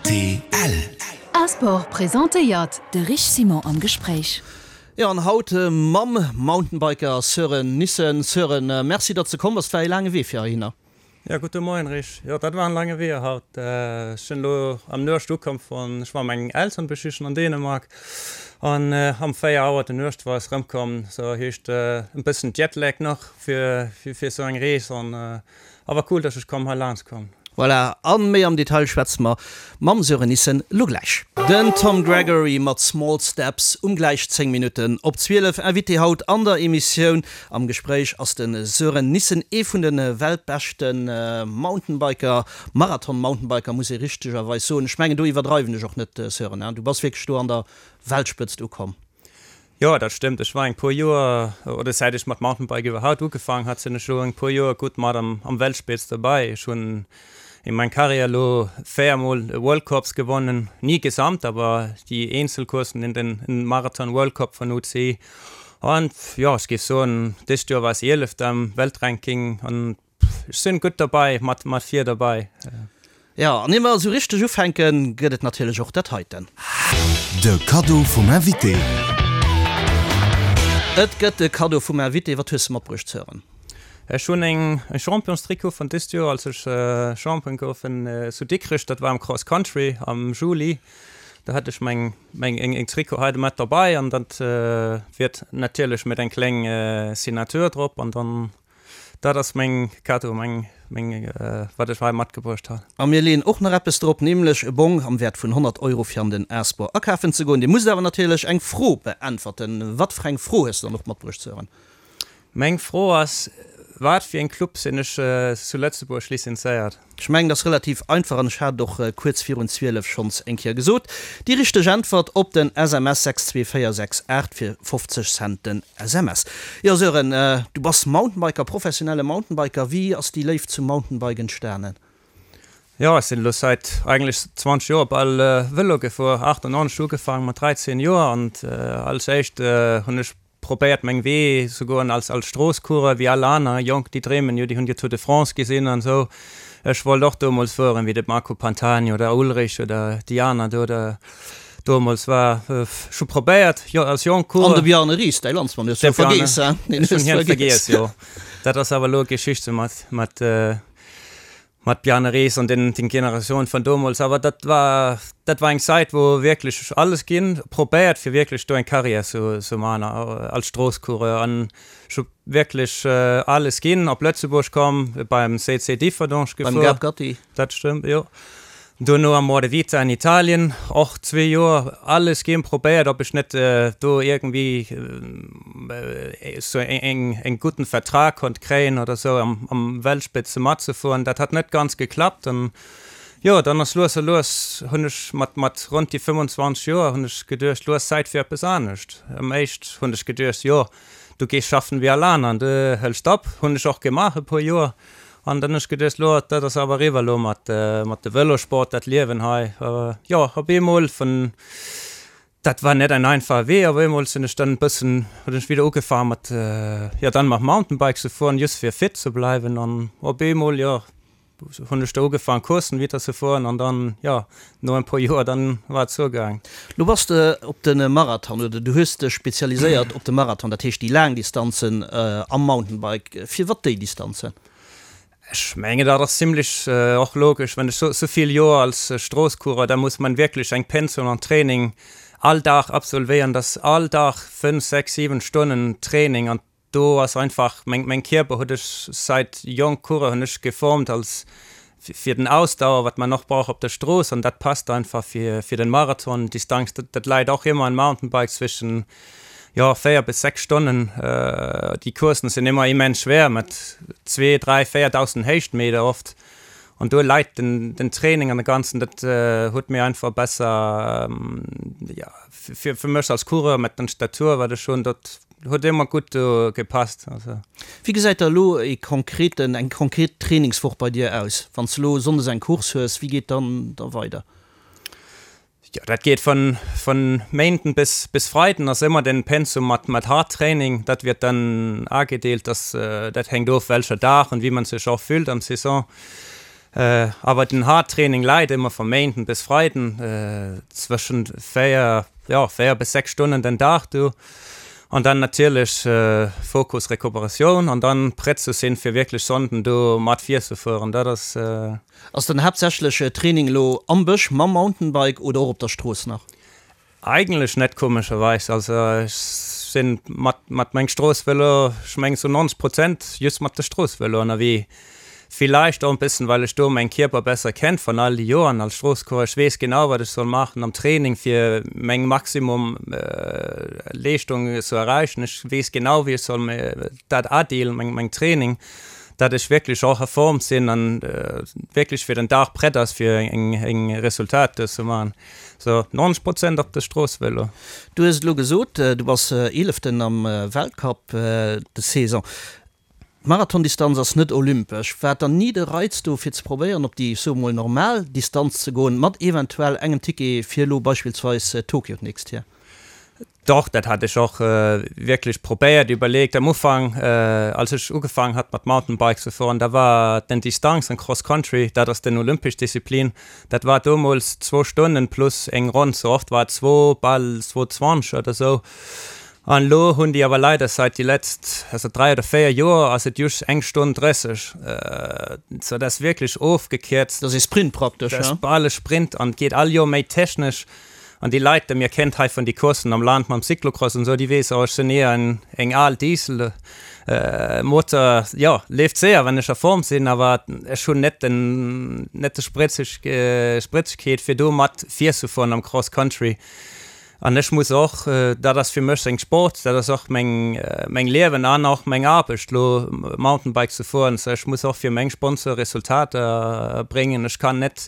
Rtl. A-Sport presentéiert de Rich Simon am Gespréich. Jo, an haut mam Mountainbiker Sören Nissen. Sören, merci datt s de komm bass. Et war ee laange Wee fir heihinner. Jo, gudde Moien Rich. Jo, dat war en laange Wee haut. Ech sinn elo am Nuecht ukomm vun, ech war meng Elteren besichen an Dänemark an am 4 Auer de Nuecht war ech erëmkomm. Sou heescht en bëssen Jetlag nach fir fir sou eng Rees an Awer cool dass ech komm hei laangs komm. Voilà, an méi am Detail schwätze mer mam Sören Nissen lo gläich. Den Tom Gregory mat Small Steps um gläich 10 Minutten op 12. Invité haut an der Emissioun am Gespréich ass de Sören Nissen, ee vun de weltbeschte Mountainbiker, Marathon-Mountainbiker muss ee richtegerweis soen. Ech mengen do iwwerdreiwen ech och net Sören, hein? Du bass wierklech do an der Weltspëtzt ukomm. Jo, dat stëmmt. Ech war eng puer Joer, oder säit ech mat Mountainbike iwwerhaupt ugefaang hat, sinn ech elo eng puer Joer gutt mat am am Weltspitz dobäi. Ech hunn in meng Karriär elo 4 mol e World Cups gewonnen, ni gesamt, awer déi Eenzelcoursen in den in Marathon World Cup vun UCI. An jo, ech géif soen, dëst Joer war ech Ieleft am Weltranking an Ech sinn gutt derbei, mat mat vir derbei. Jo, an ier mer esou richteg ufänken, gëtt et natierlech och dat heiten. De Kaddo vum Invité. Et gëtt de Kaddo vum Invité. Wat hues de matbruecht, Sören? Ech hunn eng e Championstrikot vun dëst Joer, als ech Champion gouf zu Dikrech, dat war am Cross Country am Juli. Do hat ech meng meng eng Trikot hei mat derbei an dat wiert natierlech mat eng kleng Signature drop an dann Dat ass meng Cadeau, meng, meng, wat ech hei matgebruecht han. A mir leeën och nach eppes drop, nämlech e Bong am Wäert vun 100 Euro fir an den A-Sport akafen ze goen. Dir musst awer natierlech eng Fro beäntwerten. Wat fir eng Fro hues de dann och matbruecht, Sören? Meng Fro ass, Wat fir en Club sinn ech zu Lëtzebuerg lizenzéiert? Ech mengen, dat ass relativ einfach an ech hat et och kuerz virun 12 schonns eng Kéier gesot. Déi richteg Äntwert op den SMS 62468 fir 50 Cent den SMS. Jo Sören, du bass Mountainbiker, professionelle Mountainbiker. Wéi ass déi Léift zum Mountainbike entstanen? Jo, ech sinn elo säit eigentlech 20 Joer bal Vëlo gefuer, 98 ugefaangen mat 13 Joer an als éischt hunn ech Probéiert meng Wee ze goen als als Stroosscoureur wéi all aner Jonk, déi dreemen jo, déi hunn jo Tour de France gesinn an esou. Ech wollt och domols fueren wéi de Marco Pantani oder Ullrich oder déi aner do da domols war. Ech hu probéiert jo als jonk Coureur. An de Bjarne Riis, däi Landsmann, hues du vergeess, hein? Ech hunn hien vergeess, jo. Dat ass awer elo Geschichte mat mat. Mat Bjarne Riis an den den Generatioun vun domols, awer dat war dat war eng Zait wou wierklech alles ginn probéiert fir wierklech do eng Carrière zu zu man als Stroosscoureur an ech hu wierklech alles ginn, op Lëtzebuerg komm, beim CC Differdange gefuer. Beim Gab Gatti. Dat stëmmt, jo. Dono am Moravita an Italien, och zwee Joer alles ginn, probéiert ob ech net do iergendwéi sou eng gudden Vertrag konnt kréien oder sou am am Weltspitze matzefueren. Dat hat net ganz geklappt an jo dann ass lues a lues hunn ech mat mat ronn déi 25 Joer hunn ech geduecht, lo ass Zäit fir eppes anescht. Am éischt hunn ech geduecht, jo du gees schaffen wéi all aner an du hëls op. Hunn ech och gemaach e puer Joer. An dann hunn ech geduecht, lo, dat ass awer eriwwer elo mat, mat de Vëlosport, dat Liewen hei. Jo, op eemol vun, dat war net en einfache Wee, op eemol sinn ech dann e bëssen, hunn ech wieder ugefaangen mat, jo, dann mat Mountainbike ze fueren, just fir fit ze bleiwen. An op eemol, jo, hunn ech da ugefaangen Courssen wieder ze fueren an dann, jo, no en puer Joer, dann war et zougaang. Lo bass de op de Marathon, oder du hues dech spezialiséiert op de Marathon, dat heescht déi laang Distanzen am Mountainbike. Firwat déi Distanzen? Ech mengen dat ass zimlech och logesch, wann ech sou vill Joer als Stroosscoureur, da muss man wierklech eng Pensum an Training all Dag absolvéieren, dat ass all Dag 5, 6, 7 Stonnen Training an do ass einfach meng meng Kierper huet ech seit jonk Coureur hunn ech geformt als fir den Ausdauer wat man och brauch op der Strooss an dat passt einfach fir fir den Marathon Distanz, dat läit och ëmmer en Mountainbike zwischen Jo, 4 bis 6 Stonnen. Déi Courssen sinn ëmmer immens schwéier mat 2, 3, 4.000 Héichtmeter oft. An do leit den, den Training an de Ganzen, dat huet mir einfach besser, jo, fir, fir mech als Coureur mat den Statur, wat ech hunn, dat huet ëmmer gutt do gepasst. Also. Wéi gesäit da elo e konkreten, eng konkret Trainingswoch bei dir aus? Wann s de elo sonndes eng Course hues, wéi geet dann da weider? Jo, dat geet vun, vun Méinden bis, bis Freiden ass ëmmer den Pensum mat, mat hard Training. Dat wird dann agedeelt, dass, dat hänkt of welcher Dag und wie man sech och fühlt am Saison. Awer den hard Training läit ëmmer vu Méinden bis Freiden zwëschen 4, jo 4 bis 6 Stonnen den Dag do. An dann natierlech Fokus Recuperatioun an dann prett ze sinn fir wierklech Sonnden do mat virzefueren. Dat ass. Ass dann haaptsächlech Training elo am Bësch mam Mountainbike oder och op der Strooss nach? Eigentlech net komescherweis. Also ech sinn mat mat mengem Stroossvëlo, ech mengen zu 90 Prozent just mat de Stroossvëlo ënnerwee. Villeicht och en bëssen well ech do mäin Kierper besser kennt van all déi Joeren als Stroosscoureur. Ech weess genau wat ech soll maachen am Training fir meng Maximum Leeschtung ze erreichen. Ech weess genau wéi ech soll dat adeelen meng meng Training, dat ech wierklech och a Form sinn an wierklech fir den Dag prett ass fir eng eng Resultat do ze maachen. So 90 Prozent op de Stroossvëlo. Du hues et elo gesot, du bass Eeleften am Weltcup des Saison. D'Marathondistanz ass net olympesch. War dann ni de Reiz do fir ze probéieren op déi, ech soe mol, normal Distanz ze goen, mat eventuell engem Ticket fir elo beispillsweis Tokio d'nächst Joer? Doch, dat hat ech och wierklech probéiert, iwwerleegt. Am Ufank, als ech ugefaangen hat mat Mountainbike ze fueren, da war den Distanz an Cross Country, dat ass den olympesch Disziplin, dat war domols zwou Stonnen plus eng Ronn, sou oft war et zwou, bal zwou 20 oder sou. An elo hunn déi awer leider seit déi letzt, also 3 oder 4 Joer ass et just eng Stonn 30, sou dat ass wierklech ofgekierzt. Dat ass ee Sprint praktesch, ja? Dat ass bal e Sprint an et geet all Joer méi technesch. An déi Leit, déi mir kennt hei vun déi Courssen am Land mam Cyclocross an esou, déi weess, oh ech sinn eher en eng al Diesel Motor, jo leeft séier wann ech a Form sinn, awer ech hunn net den net de Spritzeg Spritzegkeet fir do mat virzefueren am Cross Country. An ech muss och, dat ass fir mech seng Sport, dat ass och meng meng Liewen an och meng Aarbecht lo Mountainbike ze fueren, sou ech muss och fir meng Sponsor Resultater bréngen. Ech kann net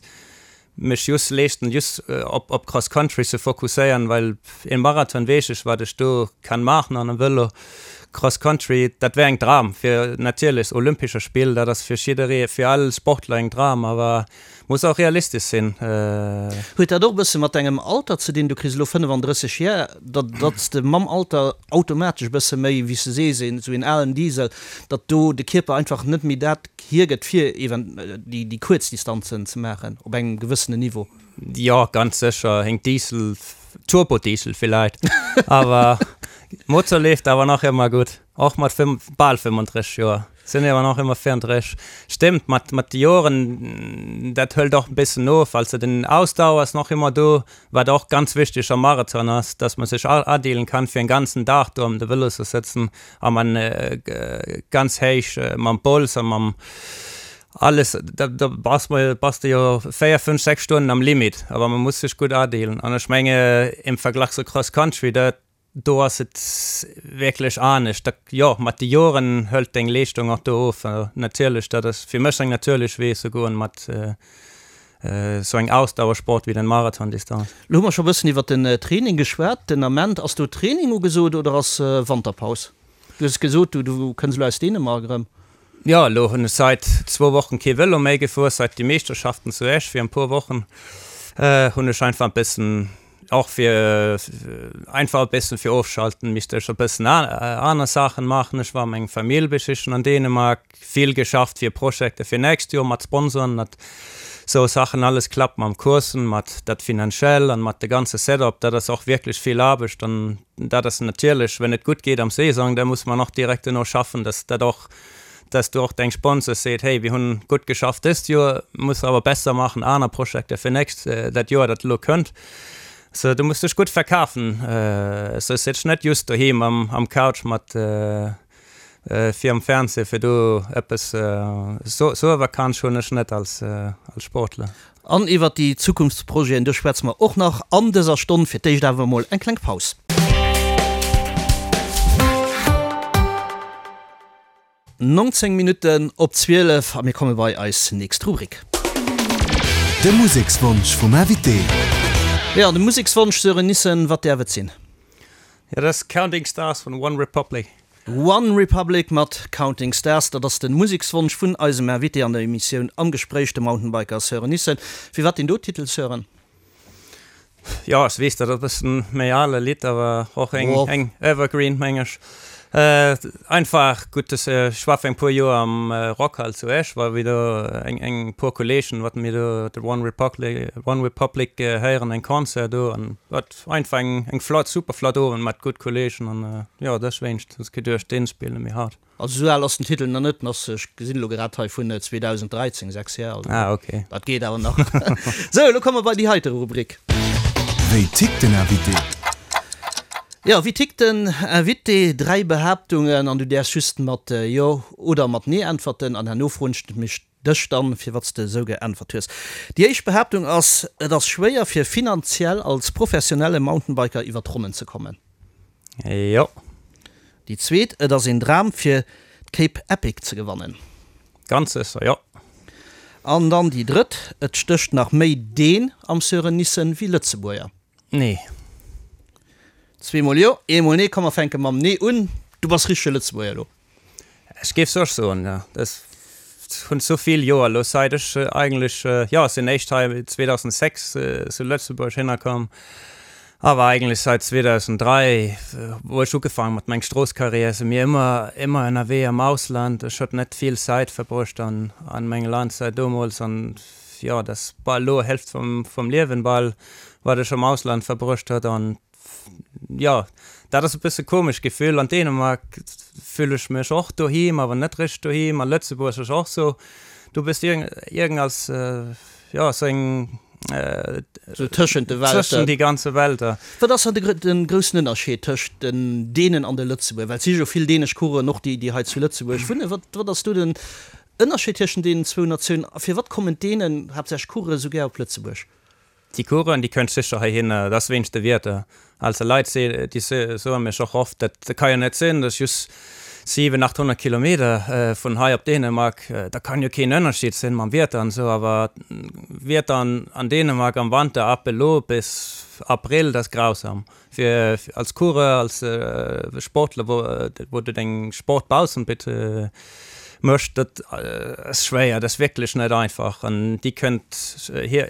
mech just leeschten just op op Cross Country ze fokusséieren, well een Marathon weess ech wat ech do kann maachen an e Vëlo Cross Country dat wär eng Dram fir natierlech Olympescher Spill, dat ass fir jidderee fir all Sportler eng Dram, awer muss och realistesch sinn. Huet dat och e bësse mat dengem Alter ze dinn? Du kriss elo 35 Jar, datt datt s de mam Alter automatesch e bësse méi, wéi s de sees, een esou een alen Diesel, datt do de Kierper einfach net méi dat hiergëtt fir even déi déi kuerz Distanzen ze maachen op engem gewëssenen Niveau. Jo, ganz sécher, een Diesel, Turbodiesel villäit, awer Motor leeft awer nach ëmmer gutt, och mat bal 35 Joer sinn awer nach ëmmer 34. Stémmt, mat mat de Joren, dat hëlt och e bëssen of, also den Ausdauer ass nach ëmmer do, Wat och ganz wichteg am Marathon ass, dass man sech adeelen kann fir en ganzen Dag do am de Vëlo ze sëtzen a man ganz héich mam Bols a mam alles, da da bass mer bass de jo 4, 5, 6 Stonnen am Limit, awer man muss sech gutt adeelen an ech menge im Verglach zu Cross Country, dat do ass et wierklech anescht. Da jo, mat de Joren hëlt deng Leeschtung och do of. Natierlech, dat ass fir mech eng natierlech Wee ze goen mat esou eng Ausdauersport wéi den Marathondistanz. Lo hu mer scho bëssen iwwert den Training geschwat. Den Ament, ass do Training ugesot oder ass Wanterpaus? Du hues gesot, du kënns elo aus Dänemark erëm. Jo, elo hunn ech sait zwou Wochen kee Vëlo méi gefuer, sait déi Meeschterschaften zu Esch fir en puer Wochen hunn ech einfach e bëssen, och fir einfach e bëssen fir ofschalten, misst ech e bëssen aner Saachen maachen. Ech war meng Famill besichen an Dänemark, vill geschafft fir Projekte fir nächst Joer mat Sponsoren, datt sou Saachen alles klappt mam Coursen, mat dat finanziell an mat de ganze Setup, dat ass och wierklech vill Aarbecht an dat ass natierlech, wenn et gutt geet am Saison, da muss man och direkt duerno schaffen, dass dat och, dass du och deng Sponsors seet, hey, wir hunn gutt geschafft dëst Joer, muss awer besser maachen, aner Projekte fir nächst, dat Joer, dat elo kënnt. So, du muss dech gutt verkafen, so sëtz net just doheem am, am Couch mat virum Fernseh, fir do eppes, so, sou e Vakanz hunn ech net als, als Sportler. An iwwert déi Zukunftsprojeten, do schwätze mer och nach an dëser Stonn. Fir d'éischt awer emol eng kleng Paus. 19 Minutten op 12 a mir komme bei eis nächst Rubrik. De Musekswonsch vum Invité. Jo, de Musekswonsch, Sören Nissen, wat däerf et sinn? Jo, dat ass Counting Stars vun One Republic. One Republic mat Counting Stars, dat ass de Musekswonsch vun eisem Invité an der Emissioun Am Gespréich, de Mountainbiker Sören Nissen. Firwat deen do Titel, Sören? Jo, ech weess, dat ass e bëssen méi ale Lidd, awer och eng, eng Evergreen, meng ech. Einfach gutt, ech war fir eng puer Joer am Rockhal zu Esch, war wéi do eng eng puer Kolleegen, wat mir do de One Republic One Republic héieren, eng Concert do an wat einfach eng eng flott super flott Owend mat gutt Kolleegen an jo dëswéinst hunn ech geduecht deen spille mir haut. Also esou al ass den Titel nach net, en ass, ech gesinn elo grad hei, vun 2013, 6 Jar, also Ah, ok. dat geet awer nach. Sou, elo komme mer bei déi heite Rubrik. Wéi tickt den Invité? Jo, wéi tickt den Invité? Dräi Behaaptungen an du däerfs just mat Jo oder mat Nee äntwerten an herno froen ech mech dech dann, firwat s de esou geäntwert hues. Déi éischt Behaaptung ass, Et ass schwéier fir finanziell als professionelle Mountainbiker iwwer d'Ronnen ze kommen. Jo. Déi zweet, Et ass een Dram fir d'Cape Epic ze gewannen. Ganz sécher, jo. An dann déi drëtt, Et stécht nach méi Deen am Sören Nissen wéi Lëtzebuerger. Nee. Zweemol jo, eemol nee. Komm mer fänke mam Nee un. Du bass richtege Lëtzebuerger elo. Ech géif soch soen, jo. Ech hunn sou vill Joer elo sait ech eigentlech, jo, ech sinn éischt hei 2006 zu Lëtzebuerg hinnerkomm, awer eigentlech sait 2003, wou ech ugefaangen mat meng Stroosskarriär, si mir ëmmer, ëmmer ënnerwee am Ausland. Ech huet net vill Zäit verbruecht an, an mengem Land sait domols an, jo, dat ass bal elo Hälft vum, vum Liewen bal, wat ech am Ausland verbruecht huet an Jo, dat ass e bësse komesch Gefill. An Dänemark füll ech mech och doheem, awer net richteg doheem. A Lëtzebuerg ass och sou, du bist iergend als, jo, sou eng. Sou tëschent de Welten. Tëschent déi ganze Welter. Wat ass dann de groussen Ënnerscheed tëscht den Dänen an de Lëtzebuerger? Well et si jo vill dänesch Coureuren och, déi hei zu Lëtzebuerg wunnen. Wat, wat ass do den Ënnerscheed tëschent deenen zwou Natiounen? A firwat kommen d'Dänen, haaptsächlech Coureuren, esou gär op Lëtzebuerg? Déi Coureuren, déi kënnt sécher heihinner, dat ass wéinst de Wieder. Also Leit, déi soe mech och oft, dat ka jo net sinn, dat ass just 700, 800 Kilometer vun hei op Dänemark, da kann jo keen Ënnerscheed sinn mam Wieder an esou. Awer Wieder an Dänemark am Wanter ab elo bis Abrëll, dat ass grausam. Fir als Coureur, als Sportler, wou du deng Sport baussent méchs, dat ass schwéier, dat ass wierklech net einfach. An déi kënnt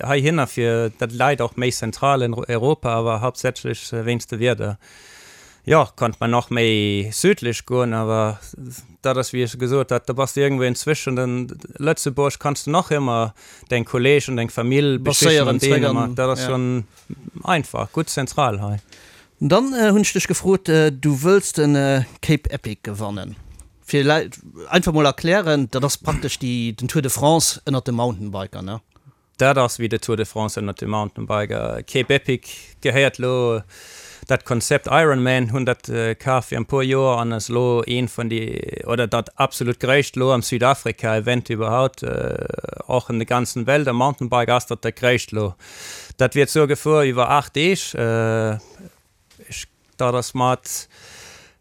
heihinner, fir dat läit och méi zentral an Europa, awer haaptsächlech wéinst de Wieder. Jo, konnt man och méi südlech goen, awer dat ass, wéi ech gesot hat, da bass de iergendwou inzwischen. Den Lëtzebuerg kanns de nach ëmmer deng Kolleegen, deng Famill besichen an Dänemark, dat ass schonn. Einfach, gutt zentral hei. Dann hunn ech dech gefrot, du wëlls de Cape Epic gewannen. Fir Leit einfach mol erklären, dat ass praktesch déi den Tour de France ënnert de Mountainbiker, ne? Dat ass wéi de Tour de France ënnert de Mountainbiker. Cape Epic gehéiert lo dat Konzept Ironman, hunn dat kaf fir en puer Joer an ass lo een vun déi, oder dat absolut gréisst lo am Südafrika Event iwwerhaupt, och an de ganzen Welt am Mountainbike ass dat dat gréisst lo. Dat wier zur Gefor iwwer 8 Deeg. Ech, dat ass mat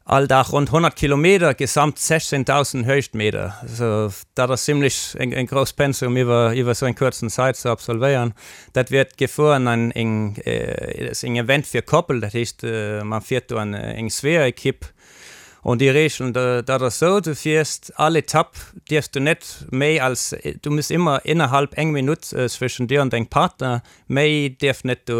all Dag ronn 100 Kilometer, gesamt 16.000 Héichtmeter. Also dat ass zimlech eng, eng grouss Pensum iwwer, iwwer esou eng kuerzen Zäit ze absolvéieren. Dat wiert gefuer an eng, ass eng Event fir Koppel, dat heescht man fiert do an eng Zweeër-Ekipp. An déi Regeln, dat ass esou, du fiers all Etapp dierfs du net méi als, du muss ëmmer innerhalb eng Minutt zwëschen dir an dengem Partner, méi dierf net do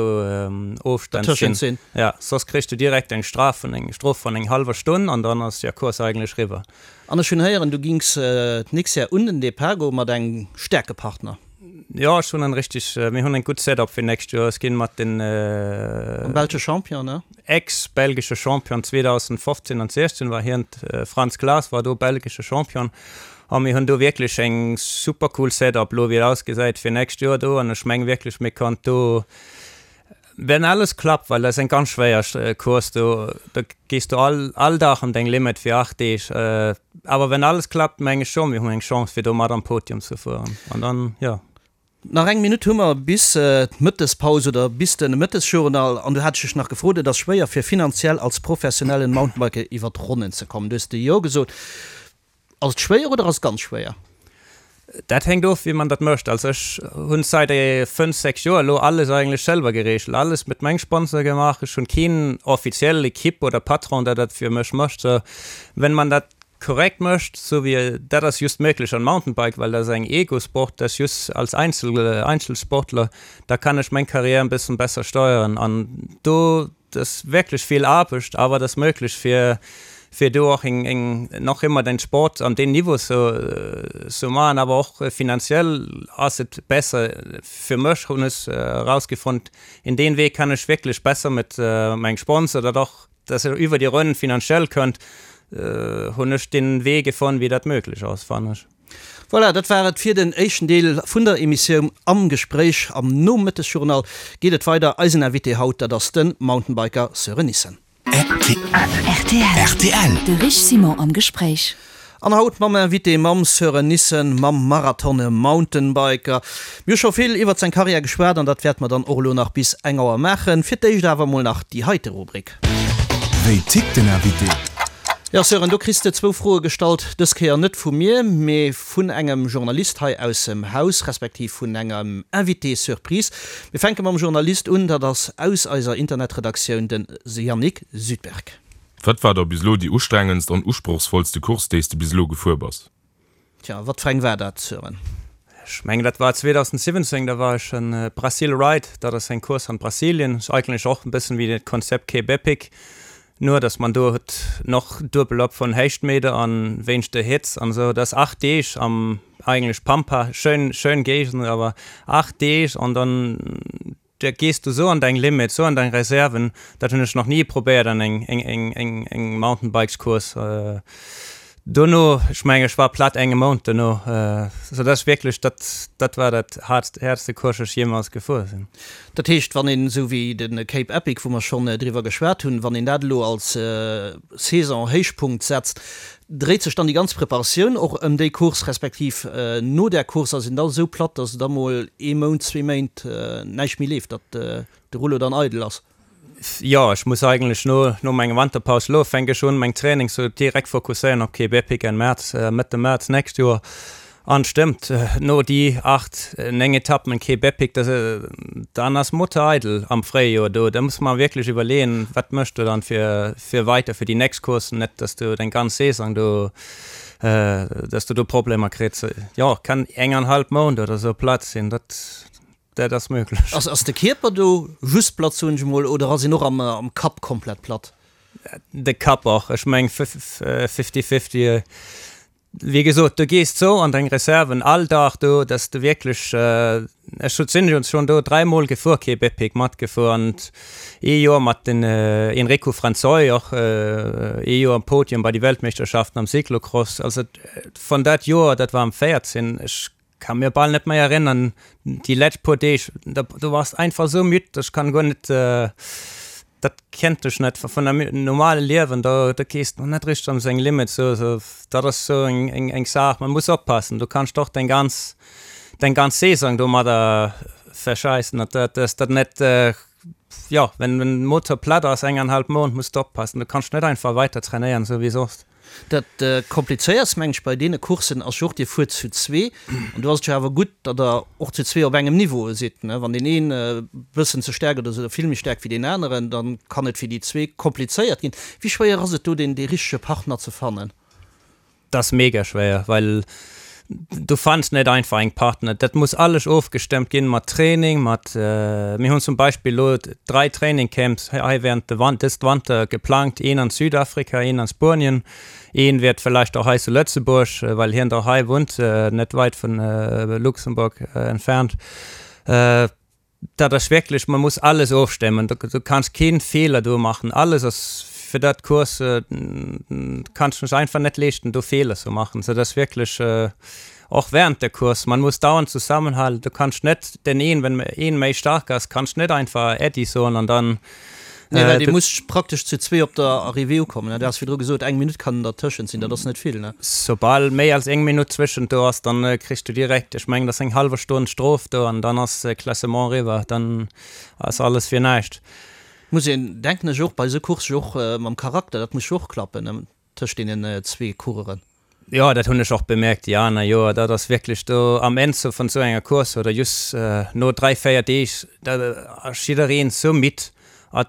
Ofstand sinn. Ja, soss kriss du direkt eng Straf vun eng Strof vun eng hallwer Stonn an dann ass der Course eigentlech riwwer. An ech hunn héieren, du gings d'nächst Jahr un den Depart goe mat engem staarke Partner. Jo, ech hunn en richteg, mir hunn en gutt Setup fir nächst Joer. Ech ginn mat den. Am belsche Champion, ne? Ex-belgesche Champion 2015 an 16 war hien, Frans Claes war do belgesche Champion a mir hunn do wierklech eng super cool Setup elo wéi et ausgesäit fir nächst Joer do an ech meng wierklech mir kann do wenn alles klappt, well dat ass eng ganz schwéier Course do, do gees du all all Dag an deng Limit fir 8 Deeg, awer wenn alles klappt meng ech scho mir hunn eng Chance fir do mat am Podium ze fueren an dann jo. Nach eng Minutt hu mer bis d'Mëttespaus oder bis de Mëttesjournal. An du hat ech dech nach gefrot, et ass schwéier fir finanziell als professionellen Mountainbiker iwwer d'Ronnen ze kommen. Du hues de Jo gesot. Ass et schwéier oder ass et ganz schwéier? Dat hänkt of wéi man dat mécht. Also ech hunn seit 5, 6 Joer elo alles eigentlech selwer gereegelt, alles mit mengem Sponsor gemaach. Ech hunn keen offiziell Equipe oder Patron der dat fir mech mécht. Sou wenn man dat korrekt mécht, sou wéi dat ass just méiglech an Mountainbike, well dat ass eng Ego-Sport, dat ass just als Einzel Einzelsportler, da kann ech meng Karriär en bëssen besser steuern an do, dat ass wierklech vill Aarbecht, awer dat ass méiglech fir. Fir do och eng, eng, nach ëmmer den Sport an deem Niveau ze, ze maachen, awer och finanziell ass et besser fir mech, hunn ech erausgefonnt, in deen Wee kann ech wierklech besser mat mengem Sponsor, dat och, dass ech iwwer déi Ronn finanziell kënnt, hunn ech den Wee gefonnt, wéi dat möglich ass, fannen ech. Voilà, dat war et fir den éischten Deel vun der Emissioun Am Gespréich. Am Nomëttesjournal geet et weider. Eisen Invité haut, dat ass de Mountainbiker Sören Nissen. Rtl. De Rich Simon am Gespréich. An haut mam Invité, mam Sören Nissen, mam Marathon-Mountainbiker. Mir hu scho vill iwwert seng Karriär geschwat an dat wäerte mer dann och elo nach bis eng Auer maachen. Fir d'éischt awer mol nach déi heite Rubrik. Wéi tickt den Invité? Jo Sören, do kriss de zwou Froe gestallt, dës Kéier net vu mir, mee vun engem Journalist hei aussem Haus, respektiv vun engem Invité surprise. Mir fänke mam Journalist un, dat ass aus eiser Internetredaktioun den Yannick Südberg. Wat war da bis elo déi ustrengendst an usprochsvollste Course, déi s de bis elo gefuer bass? Tja, wat fir eng war dat, Sören? Ech mengen dat war 2017, da war ech en Brasil Ride, dat ass eng Course an Brasilien, ass eigentlech och en bëssen wéi dat Konzept Cape Epic, nur dass man do huet noch duebel op vun Héichtmeter an wéinst der Hitz an esou. Dat ass 8 Deeg am eigentlech Pampa, schön schön Géigend, awer 8 Deeg an dann Da gees du sou an deng Limit, sou an deng Reserven, dat hunn ech nach ni probéiert an eng eng eng eng Mountainbikescourse. Dono, ech mengen ech war platt enge Mount dono, sou dass wierklech dat dat war dat haartst häertste Course ech jeemals gefuer sinn. Dat heescht, wann een esou wéi de Cape Epic, wou mer schonn driwwer geschwat hunn, wann een dat elo als Saison-Héichpunkt setzt, Dréit sech dann déi ganz Preparatioun och ëm déi Course, respektiv no där Course ass een da esou platt, datt et da mol ee Mount, zwee Méint näischt méi leeft, datt de Rouleau dann eidel ass? Jo, ech muss eigentlech no no menger Wanterpaus elo fänk ech un meng Trainings sou direkt fokusséieren op Cape Epic Enn März, Mëtte März nächst Joer. An stëmmt, no déi 8, 9 Etappen en Cape Epic, da dann ass Motor eidel am Fréijoer do. Da muss mer wierklech iwwerleeën, wat méchs du dann fir fir weiter fir déi nächst Coursen, net dass du deng ganz Saison do, dass du do Problemer kritt. Jo, kann eng an halb Mount oder sou platt sinn, dat dat ass möglech. Ass ass de Kierper do just platt, soen ech emol, oder ass een och am am Kapp komplett platt? De Kapp och, ech meng fifty fifty. Wéi gesot, du gees sou an deng Reserven all Dag do, dass du wierklech, ech sinn jo schonn do dräimol gefuer, Cape Epic matgefuer an ee Joer mat den Enrico Franzoi och ee Joer am Podium bei de Weltmeeschterschaften am Cyclocross. Also vun dat Joer, dat war am 14, ech Kann mir bal net mei erinnern déi letzt puer Deeg da du warst einfach sou müd ech kann guer net dat kennt ech net vun der normale Liewen da da gees du net richteg an seng Limit sou sou dat ass sou eng eng eng Saach man muss oppassen du kanns doch deng ganz deng ganz Saison domadder verscheissen dat dat dass dat net jo wenn den Motor platt ass eng an halb Mount muss de oppassen du kanns net einfach weiter trainéieren sou wéi soss. Dat Komplizéiertst, mengen ech, bei deene Courssen ass jo och, Dir fuert zu zwee an do ass et jo awer gutt, datt Der och zu zwee op engem Niveau sidd. Wann deen een e bëssen ze staark oder esou vill méi staark wéi deen aneren, da kann et fir déi zwee komplizéiert ginn. Wéi schwéier ass et do, deen dee richtege Partner ze fannen? Dat ass mega schwéier, well du fanns net einfach eng Partner. Dat muss alles ofgestëmmt ginn mat Training, mat, mir hunn zum Beispill elo 3 Trainingcamps hei während de Wan dëst Wanter geplangt, een an Südafrika, een an Spuenien, een wäert vielleicht och hei zu Lëtzebuerg, well hien da hei wunnt, net weit vun Luxemburg entfernt. Dat ass wierklech, man muss alles ofstemmen, du kanns keen Feeler do maachen, alles ass fir dat Course, kanns dech einfach net leeschten do Feeler ze maachen, sou dass wierklech och während der Course, man muss dauernd zusammenhalten, du kanns net den een, wenn een méi stark ass, kanns net einfach Äddi soen an dann Nee, well Dir musst praktesch zu zwee op der Arrivée ukommen, ne? Du has virdru gesot, eng Minutt kann dertëschent sinn, dat ass net vill, ne? Soubal méi als eng Minutt zwëschent do ass, dann kriss du direkt, ech mengen, dat ass eng hallwer Stonn Strof do an dann ass Klassement eriwwer, dann ass alles fir näischt. Muss een, denken ech, och bei esou Coursse jo och mam Charakter, dat muss jo och klappen, ne? Tëscht deenen zwee Coureuren. Jo, dat hunn ech och bemerkt déi aner Joer. Dat ass wierklech do am Enn sou vun sou enger Course oder just no 3, 4 Deeg, da ass jiddereen sou midd a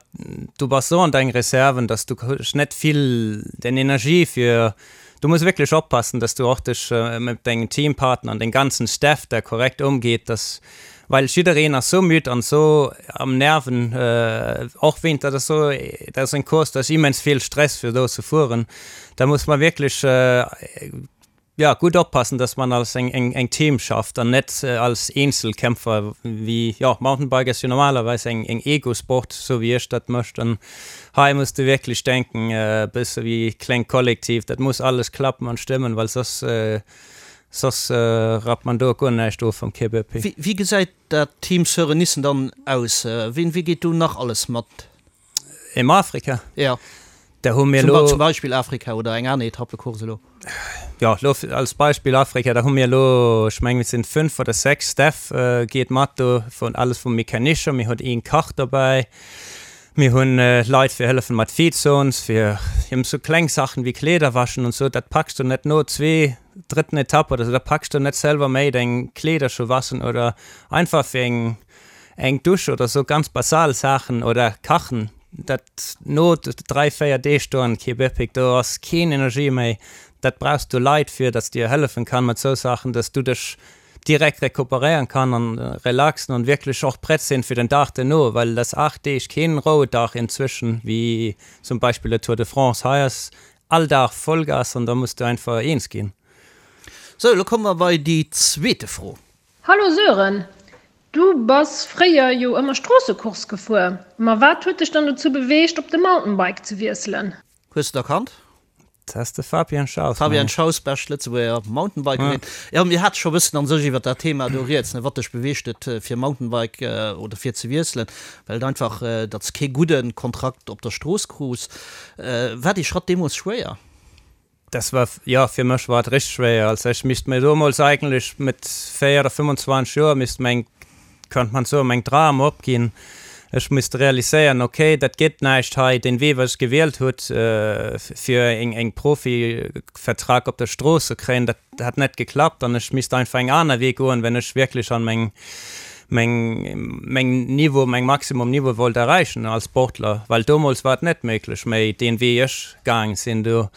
du bass sou an deng Reserven, dass du hues net vill den Energie fir. Du muss wirklich oppassen, dass du och dech mat dengen Teampartner an den ganzen Staff da korrekt umgeet, dass, well jiddereen ass sou müd an sou am Nerven, och wéint, dat ass sou, dat ass eng Course, do ass immens vill Stress fir do ze fueren, da muss man wirklich ja, gutt oppassen, dass man als eng, eng, eng Team schafft an net als Eenzelkämpfer, wéi, jo, Mountainbike ass jo normalerweis eng, eng Ego-Sport, sou wéi ech dat mécht an hei muss de wierklech denken, e bësse wéi klengt Kollektiv, dat muss alles klappen an stëmmen, well soss, soss rappt man do guer näischt of am KBP. Wéi, wéi gesäit dat Team Sören Nissen dann aus? Wien, wie geet do nach alles mat? Im Afrika? Ja. Da hu mir lo. Zum Beispill Afrika oder eng aner Etappecourse elo. Jo, lo als Beispill Afrika, da hu mir elo, ech mengen, et sinn 5 oder 6 Staff geet mat do, vun alles vum Mecanischer, mir hunn een Kach dobäi, mir hunn Leit fir hëllefen mat Feedzones, fir eben sou kleng Saachen wéi Kleeder waschen und sou, dat packs du net no zwee, drëtten Etapp oder sou, da packs du net selwer méi deng Kleeder scho waschen oder einfach fir eng Eng Dusch oder sou ganz basal Saachen oder kachen, dat no 3, 4 Deeg do an Quebec, do ass keen Energie méi, dat brauchs du Leit fir, dass dir hëllefen kann mat sou Saachen, dass du dech direkt recuperéieren kann an relaxen an wierklech och prett sinn fir den Dag duerno, well et ass 8 Deeg keen Rouedag inzwischen, wéi zum Beispill der Tour de France, hei ass all Dag Vollgas an da muss du einfach eens ginn. Sou, elo komme mer bei déi zweete Fro. Hallo Sören, du bass fréier jo ëmmer Stroossecourse gefuer, ma wat huet dech dann dozou beweegt op de Mountainbike ze wiesselen? Hues de et erkannt? Dat ass de Fabien Schaus. Fabien Schaus, bescht Lëtzebuerger Mountainbikerin. Jo, mir hate scho bëssen an sech iwwer dat Thema do rieds, ne, wat dech beweegt huet fir Mountainbike oder fir ze wiesselen, well et einfach, datt s kee gudde Kontrakt op der Strooss krus. War dee Schratt deemools schwéier? Das war, jo, fir mech war et richteg schwéier. Also ech misst mir domols eigentlech mit 4 oder 25 Joer misst meng, könnte man soen, meng Dram opginn. Ech misst realiséieren, okay, dat gëtt näischt hei, deen Wee wat ech gewielt hutt fir eng eng Profivertrag op der Strooss ze kréien, dat hat net geklappt an ech misst einfach eng aner Wee goen, wenn ech wierklech an meng meng meng Niveau, meng Maximum Niveau wollt erreichen als Sportler, well domols war et net méiglech méi deen Wee ech gaang sinn do.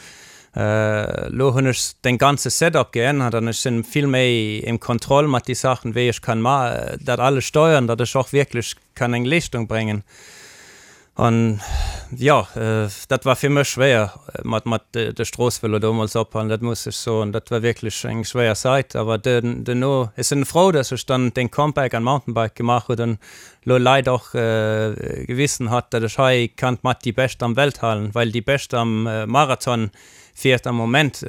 Lo hunn ech den ganze Setup geännert an ech sinn vill méi im Kontroll mat déi Saachen wéi ech kann ma dat alles steuern, datt ech och wierklech kann eng Leeschtung bréngen. An jo, dat war fir mech schwéier mat mat de Stroossvëlo domols ophalen, dat muss ech soen. Dat war wierklech eng schwéier Zait. Awer duerno, ech sinn frou, datt ech dann den Comeback an Mountainbike gemaach huet an lo Leit och gewissen hat, datt ech hei kann mat déi Bescht am Welt halen, well déi Bescht am Marathon fiert am Moment,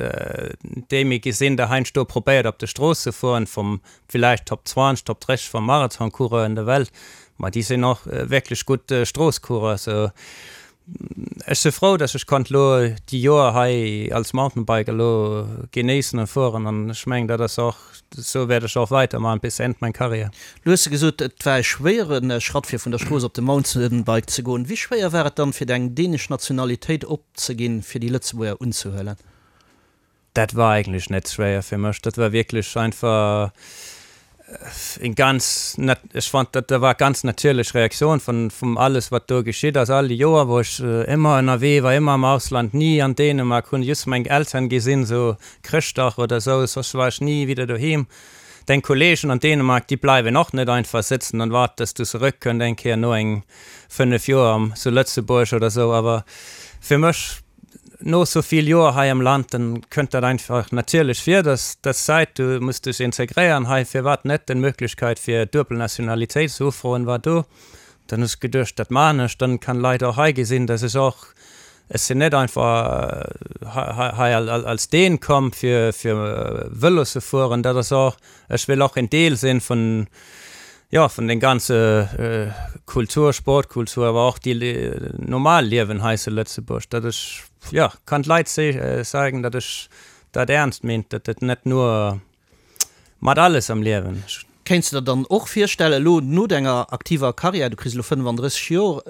déi mir gesinn, der heiansdo probéiert op de Strooss ze fueren, vum villäicht Top 20, Top 30 vum Marathoncoureur in der Welt, ma déi sinn och wierklech gutt Stroosscoureur. Sou ech si frou, datt ech konnt lo déi Joer hei als Mountainbiker lo genéissen an fueren an ech mengen dat ass och, sou wäert ech och weitermachen bis End meng Karriär. Lo hues de gesot, et war e schwéiere Schratt fir vun der Strooss op de Mountainbike ze goen. Wéi schwéier war et dann fir deng dänesch Nationalitéit opzeginn fir déi Lëtzebuerger unzehuelen? Dat war eigentlech net schwéier fir mech. Dat war wierklech einfach eng ganz, ech fand dat war ganz natierlech Reaktioun vun vum alles wat do geschitt ass all déi Joer wou ech ëmmer ënnerwee war, ëmmer am Ausland, ni an Dänemark, hunn just meng Elteren gesinn sou Chrëschtdag oder sou, soss war ech ni wieder doheem. Deng Kollegen an Dänemark déi bleiwen och net einfach sëtzen an waarden dass du zeréck kënnt eng Kéier no eng 5 Joer am zu Lëtzebuerg oder sou. Awer fir mech No sou vill Joer hei am Land, dann kënnt dat einfach natierlech vir, dass dass Zäit, du muss dech integréieren hei, firwat net? Den Möglichkeit fir duebel Nationalitéit ze ufroen war do. Dann hu ech geduecht, dat maachen ech, dann kann Leit och hei gesinn, dass ech och, ech sinn net einfach hei als Dän komm fir fir Vëlo ze fueren, dat ass och, ech wëll och en Deel sinn vun, jo, vun den ganze Kultur, Sportkultur, awer och déi normal Liewen hei zu Lëtzebuerg, datt ech, jo, kann d'Leit zeigen, datt ech dat ernst meent, datt et net nur mat alles am Liewen. Kéints de der dann och virstellen, elo no denger aktiver Karriär, du kriss elo 35 Joer,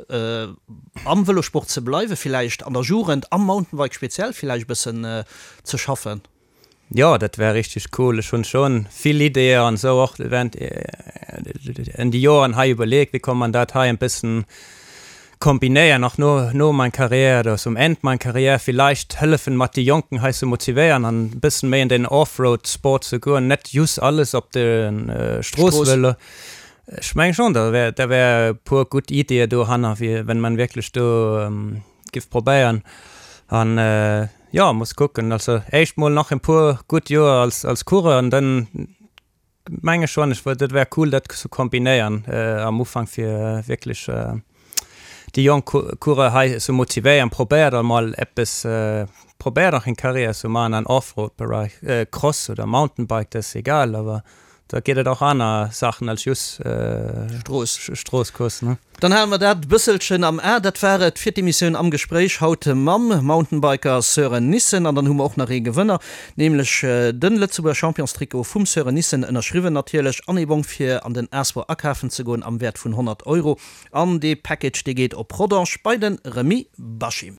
am Vëlosport ze bleiwen, villäicht an der Jugend, am Mountainbike speziell villäicht e bëssen ze schaffen? Jo, dat wär richteg cool. Ech hunn schon vill Ideeë an esou och während en déi Joeren hei iwwerleet, wéi kann man dat hei en bëssen. kombinéieren och no no mein Karriär oder zum End mein Karriär villäicht hëllefen mat déi Jonken hei ze motivéieren an e bëssen méi an den Offroad Sport ze goen, net just alles op de Strooss-Vëlo. Ech mengen schon, da wär da wär e puer gutt Ideeë dohanner, fir wenn man wierklech do giff probéieren an jo muss kucken. Also éischt mol nach e puer gutt Joer als als Coureur an dann Menge schon, ech dat wär cool dat ze kombinéieren am Ufank fir wierklech déi jonk Coureur hei ze motivéieren. Probéiert emol eppes, probéiert och eng Carrière ze maachen an Offroad Bereich, Cross oder Mountainbike, dat ass egal, awer da geet et och aner Saachen als just Strooss. Stroosscourse ne. Dann hale mer dat bësselchen am A. Dat war et fir d'Emissioun Am Gespréich haut mam Mountainbiker Sören Nissen. An dann hu mer och nach ee Gewënner, nämlech de Lëtzebuerger Championstrikot vum Sören Nissen, ënnerschriwwen natierlech, an ee Bong fir an den Asbor akafen ze goen am Wäert vun 100 Euro. An dee Package dee geet op Rodange bei de Remy Bachim.